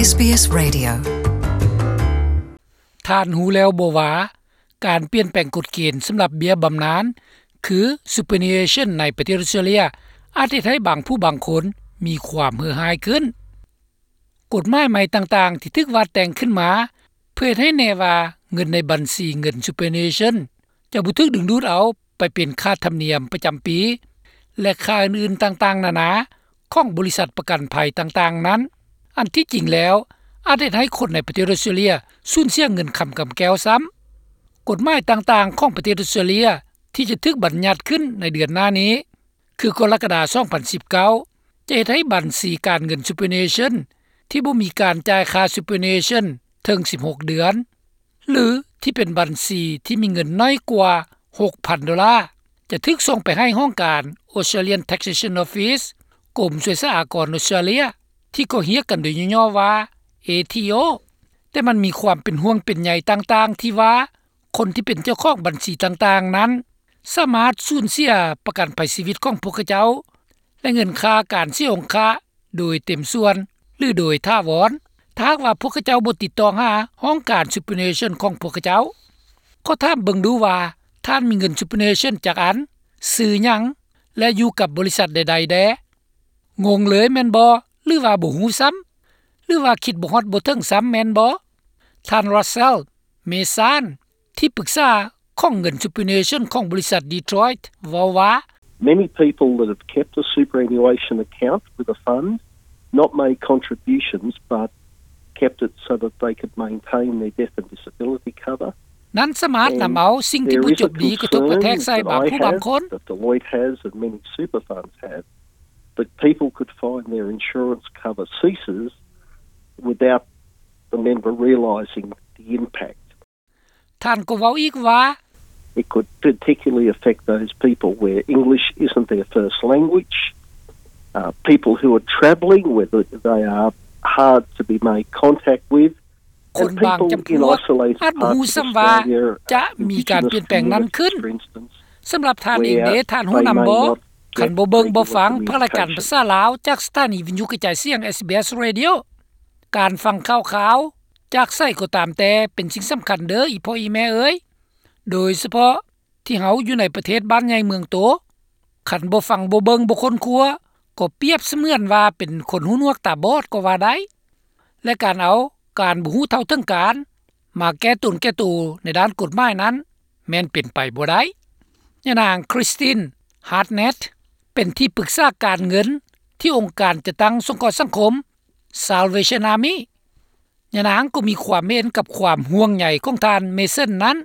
ເອສບີເອສ Radio. ທ່ານຮູ້ແລ້ວບໍ່ວ່າ ການປ່ຽນແປງກົດເກນສຳລັບເບ້ຍບຳນານ ຄື Superannuation ໃນປະເທດອົດສະຕຣາເລຍ ອາດເຮັດໃຫ້ບາງຜູ້ບາງຄົນມີຄວາມເຫື່ອຮ້າຍຂຶ້ນ. ກົດໝາຍໃໝ່ຕ່າງໆທີ່ຖືກວາດແຕ່ງຂຶ້ນມາ ເພື່ອເຮັດໃຫ້ແນ່ວ່າເງິນໃນບັນຊີເງິນ Superannuation ຈະບໍ່ຖືກດຶງດູດເອົາໄປເປັນຄ່າທຳນຽມປະຈຳປີ ແລະ ຄ່າອື່ນໆຕ່າງໆນານາຂອງບໍລິສັດປະກັນໄພຕ່າງໆນັ້ນ, ອັນທີ່ຈິງແລ້ວອາດເຮັດໃຫ້ຄົນໃນປະເທດອົດສະຕຣາເລຍສູນເສຍເງິນຄຳກຳແກ້ວຊ້ຳ. ກົດໝາຍຕ່າງໆຂອງປະເທດອົດສະຕຣາເລຍທີ່ຈະຖືກບັນຍັດຂຶ້ນໃນເດືອນໜ້ານີ້ ຄືກໍລະກະດາ ສອງພັນສິບເກົ້າ ຈະເຮັດໃຫ້ບັນຊີການເງິນ Superannuation ທີ່ບໍ່ມີການຈ່າຍຄ່າ Superannuation ເຖິງສິບຫົກເດືອນ ຫຼື ທີ່ເປັນບັນຊີທີ່ມີເງິນໜ້ອຍກວ່າ ຫົກພັນໂດລາ ຈະຖືກສົ່ງໄປໃຫ້ຫ້ອງການ Australian Taxation Office ກົມສວຍສາອາກອນອົດສະຕຣາເລຍ ທີ່ກໍຮຽກກັນໂດຍຫຍໍ້ໆວ່າ ເອທີໂອ. ແຕ່ມັນມີຄວາມເປັນຫ່ວງເປັນໃຍຕ່າງໆທີ່ວ່າ ຄົນທີ່ເປັນເຈົ້າຂອງບັນຊີຕ່າງໆນັ້ນ ສາມາດສູນເສຍປະກັນໄພຊີວິດຂອງພວກເຂົາເຈົ້າ ແລະ ເງິນຄ່າການເສຍອົງຄະໂດຍເຕັມສ່ວນ ຫຼື ໂດຍຖາວອນ ຖ້າຫາກວ່າພວກເຂົາເຈົ້າບໍ່ຕິດຕໍ່ຫາຫ້ອງການ Superannuation ຂອງພວກເຂົາເຈົ້າ. ຂໍຖາມເບິ່ງດູວ່າ ທ່ານມີເງິນ Superannuation ຈັກອັນ, ຊື່ຫຍັງ ແລະ ຢູ່ກັບບໍລິສັດໃດໆແດ່? ງົງເລີຍແມ່ນບໍ່? ຫຼືວ່າບໍ່ຮູ້ຊ້ຳ? ຫຼືວ່າຄິດບໍ່ຮອດບໍ່ເຖິງຊ້ຳແມ່ນບໍ່? ທ່ານ Russell Mason ທີ່ປຶກສາຂອງເງິນ Superannuation ຂອງບໍລິສັດ Detroit ເວົ້າວ່າ Many people that have kept a superannuation account with a fund, not made contributions, but kept it so that they could maintain their death and disability cover. ນັ້ນສາມາດນຳເອົາສິ່ງທີ່ບໍ່ຈົບດີກະທົບກະແທກໃສ່ບາງຜູ້ບາງຄົນ. That Deloitte has and many super funds have, that people could find their insurance cover ceases without the member realising the impact. ທ່ານກໍເວົ້າອີກວ່າ It could particularly affect those people where English isn't their first language, uh, people who are travelling, where they are hard to be made contact with, ຄົນບາງຈຳພວກອາດບໍ່ຮູ້ຊ້ຳວ່າຈະມີການປ່ຽນແປງນັ້ນຂຶ້ນ. ສຳລັບທ່ານເອງເດ ທ່ານຮູ້ນຳບໍ່? ຄັນບໍ່ເບິ່ງບໍ່ຟັງພາກລາຍການພາສາລາວຈາກສະຖານີວິທະຍຸກະຈາຍສຽງ ເອສບີເອສ Radio, ການຟັງຂ່າວຄາວຈາກໃສກໍຕາມແຕ່ເປັນສິ່ງສຳຄັນເດີ ອີ່ພໍ່ອີ່ແມ່ເອີຍ, ໂດຍສະເພາະ ທີ່ເຮົາຢູ່ໃນປະເທດບ້ານໃຫຍ່ເມືອງໂຕ, ຄັນບໍ່ຟັງບໍ່ເບິ່ງບໍ່ຄົ້ນຄວ້າ ກໍປຽບສະເໝືອນວ່າເປັນຄົນຫູໜວກຕາບອດກໍວ່າໄດ້ ແລະ ການເອົາການບໍ່ຮູ້ເທົ່າເຖິງການມາແກ້ຕົນແກ່ໂຕໃນດ້ານກົດໝາຍນັ້ນ ແມ່ນເປັນໄປບໍ່ໄດ້. ຍານາງ Christine Hartnett ເປັນທີ່ປຶກສາການເງິນທີ່ອົງການຈັດຕັ້ງສົງເຄາະສັງຄົມ Salvation Army. ຍານາງກໍມີຄວາມເຫັນກັບຄວາມຫ່ວງໃຍຂອງທ່ານ Mason ນັ້ນ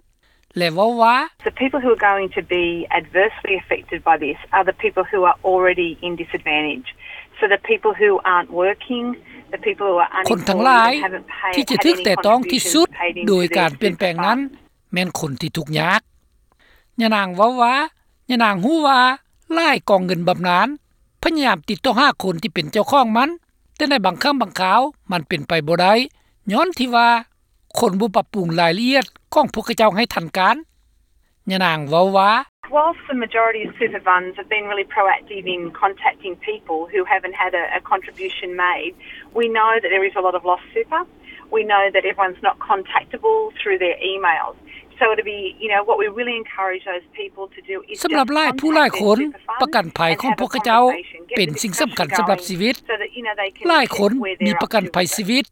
ແລະ ເວົ້າວ່າ The people who are going to be adversely affected by this are the people who are already in disadvantage. So the people who aren't working, the people who are unemployed, ຄົນທັງຫຼາຍທີ່ຈະຖືກແຕະຕ້ອງທີ່ສຸດໂດຍການປ່ຽນແປງນັ້ນ ແມ່ນຄົນທີ່ທຸກຍາກ. ຍານາງເວົ້າວ່າ ຍານາງຮູ້ວ່າຫຼາຍກອງເງິນບຳນານພະຍາຍາມຕິດຕໍ່ຫາຄົນທີ່ເປັນເຈົ້າຂອງມັນ, ແຕ່ໃນບາງຄັ້ງບາງຄາວມັນເປັນໄປບໍ່ໄດ້ ຍ້ອນທີ່ວ່າຄົນບໍ່ປັບປຸງລາຍລະອຽດຂອງພວກເຂົາເຈົ້າໃຫ້ທັນການ. ຍານາງເວົ້າວ່າ Whilst the majority of super funds have been really proactive in contacting people who haven't had a, a contribution made, we know that there is a lot of lost super. We know that everyone's not contactable through their emails. So it'll be, you know, what we really encourage those people to do is ສຳລັບຫຼາຍຜູ້ຫຼາຍຄົນ ປະກັນໄພຂອງພວກເຂົາເຈົ້າເປັນສິ່ງສຳຄັນສຳລັບຊີວິດ. ຫຼາຍຄົນມີປະກັນໄພຊີວິດ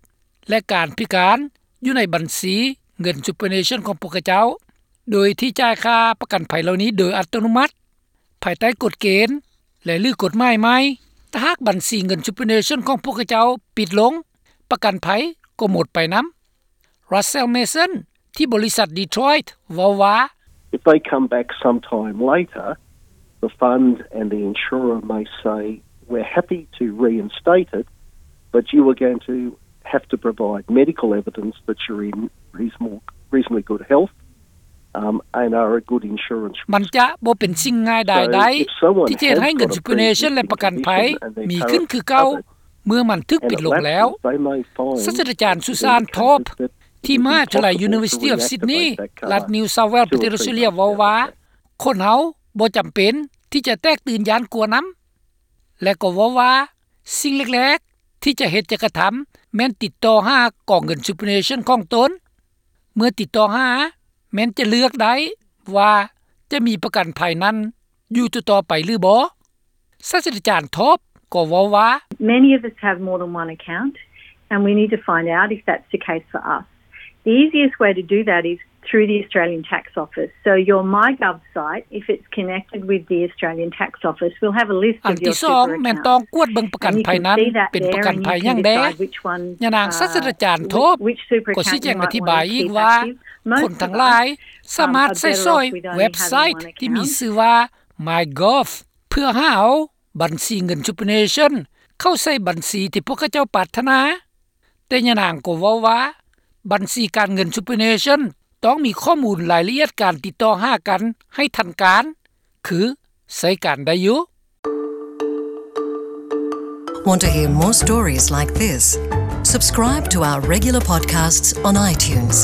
ແລະ ການພິການຢູ່ໃນບັນຊີເງິນ Superannuation ຂອງພວກເຂົາເຈົ້າ ໂດຍທີ່ຈ່າຍຄ່າປະກັນໄພເຫຼົ່ານີ້ໂດຍອັດຕະໂນມັດ ພາຍໃຕ້ກົດເກນ ແລະ ຫຼື ກົດໝາຍໃໝ່. ຖ້າຫາກບັນຊີເງິນ Superannuation ຂອງພວກເຂົາເຈົ້າປິດລົງ, ປະກັນໄພກໍໝົດໄປນຳ. Russell Mason ທີ່ບໍລິສັດ Detroit ເວົ້າວ່າ If they come back sometime later, the fund and the insurer may say, we're happy to reinstate it, but you are going to have to provide medical evidence that you're in reasonable, reasonably good health, um, and are a good insurance risk. ມັນຈະບໍ່ເປັນສິ່ງງ່າຍດາຍໄດ້ ທີ່ຈະເຮັດໃຫ້ເງິນ Superannuation ແລະ ປະກັນໄພມີຂຶ້ນຄືເກົ່າ ເມື່ອມັນຖືກປິດລົງແລ້ວ. ສາດສະດາຈານ Susan Thorp ທີ່ມະຫາວິທະຍາໄລ University of Sydney ລັດ New South Wales ປະເທດອອສເຕຣເລຍ ເວົ້າວ່າ ຄົນເຮົາບໍ່ຈຳເປັນທີ່ຈະແຕກຕື່ນຢ້ານກົວນຳ ແລະ ກໍເວົ້າວ່າ ສິ່ງແລກໆທີ່ຈະເຮັດຈະກະທຳ ແມ່ນຕິດຕໍ່ຫາກອງເງິນ Superannuation ຂອງຕົນ. ເມື່ອຕິດຕໍ່ຫາ ແມ່ນຈະເລືອກໄດ້ວ່າຈະມີປະກັນໄພນັ້ນຢູ່ຕໍ່ໆໄປຫຼືບໍ່. ສາດສະດາຈານ Thorpe ກໍເວົ້າວ່າ Many of us have more than one account and we need to find out if that's the case for us. The easiest way to do that is through the Australian Tax Office. So your MyGov site, if it's connected with the Australian Tax Office, will have a list of your super accounts. ອັນທີສອງ ແມ່ນຕ້ອງກວດເບິ່ງປະກັນໄພນັ້ນເປັນປະກັນໄພຫຍັງແດ່. ຍານາງສາດສະດາຈານ Thorpe ກໍຊີ້ແຈງອະທິບາຍອີກວ່າ ຄົນທັງຫຼາຍສາມາດໃຊ້ສອຍເວັບໄຊທີ່ມີຊື່ວ່າ MyGov ເພື່ອຫາເອົາບັນຊີເງິນ Superannuation ເຂົ້າໃສ່ບັນຊີທີ່ພວກເຂົາເຈົ້າປາດຖະໜາ. ແຕ່ຍານາງກໍເວົ້າວ່າ ບັນຊີການເງິນ Superannuation ຕ້ອງມີຂໍ້ມູນລາຍລະອຽດການຕິດຕໍ່ຫາກັນໃຫ້ທັນການ ຄືໃຊ້ການໄດ້ຢູ່. Want to hear more stories like this? Subscribe to our regular podcasts on iTunes.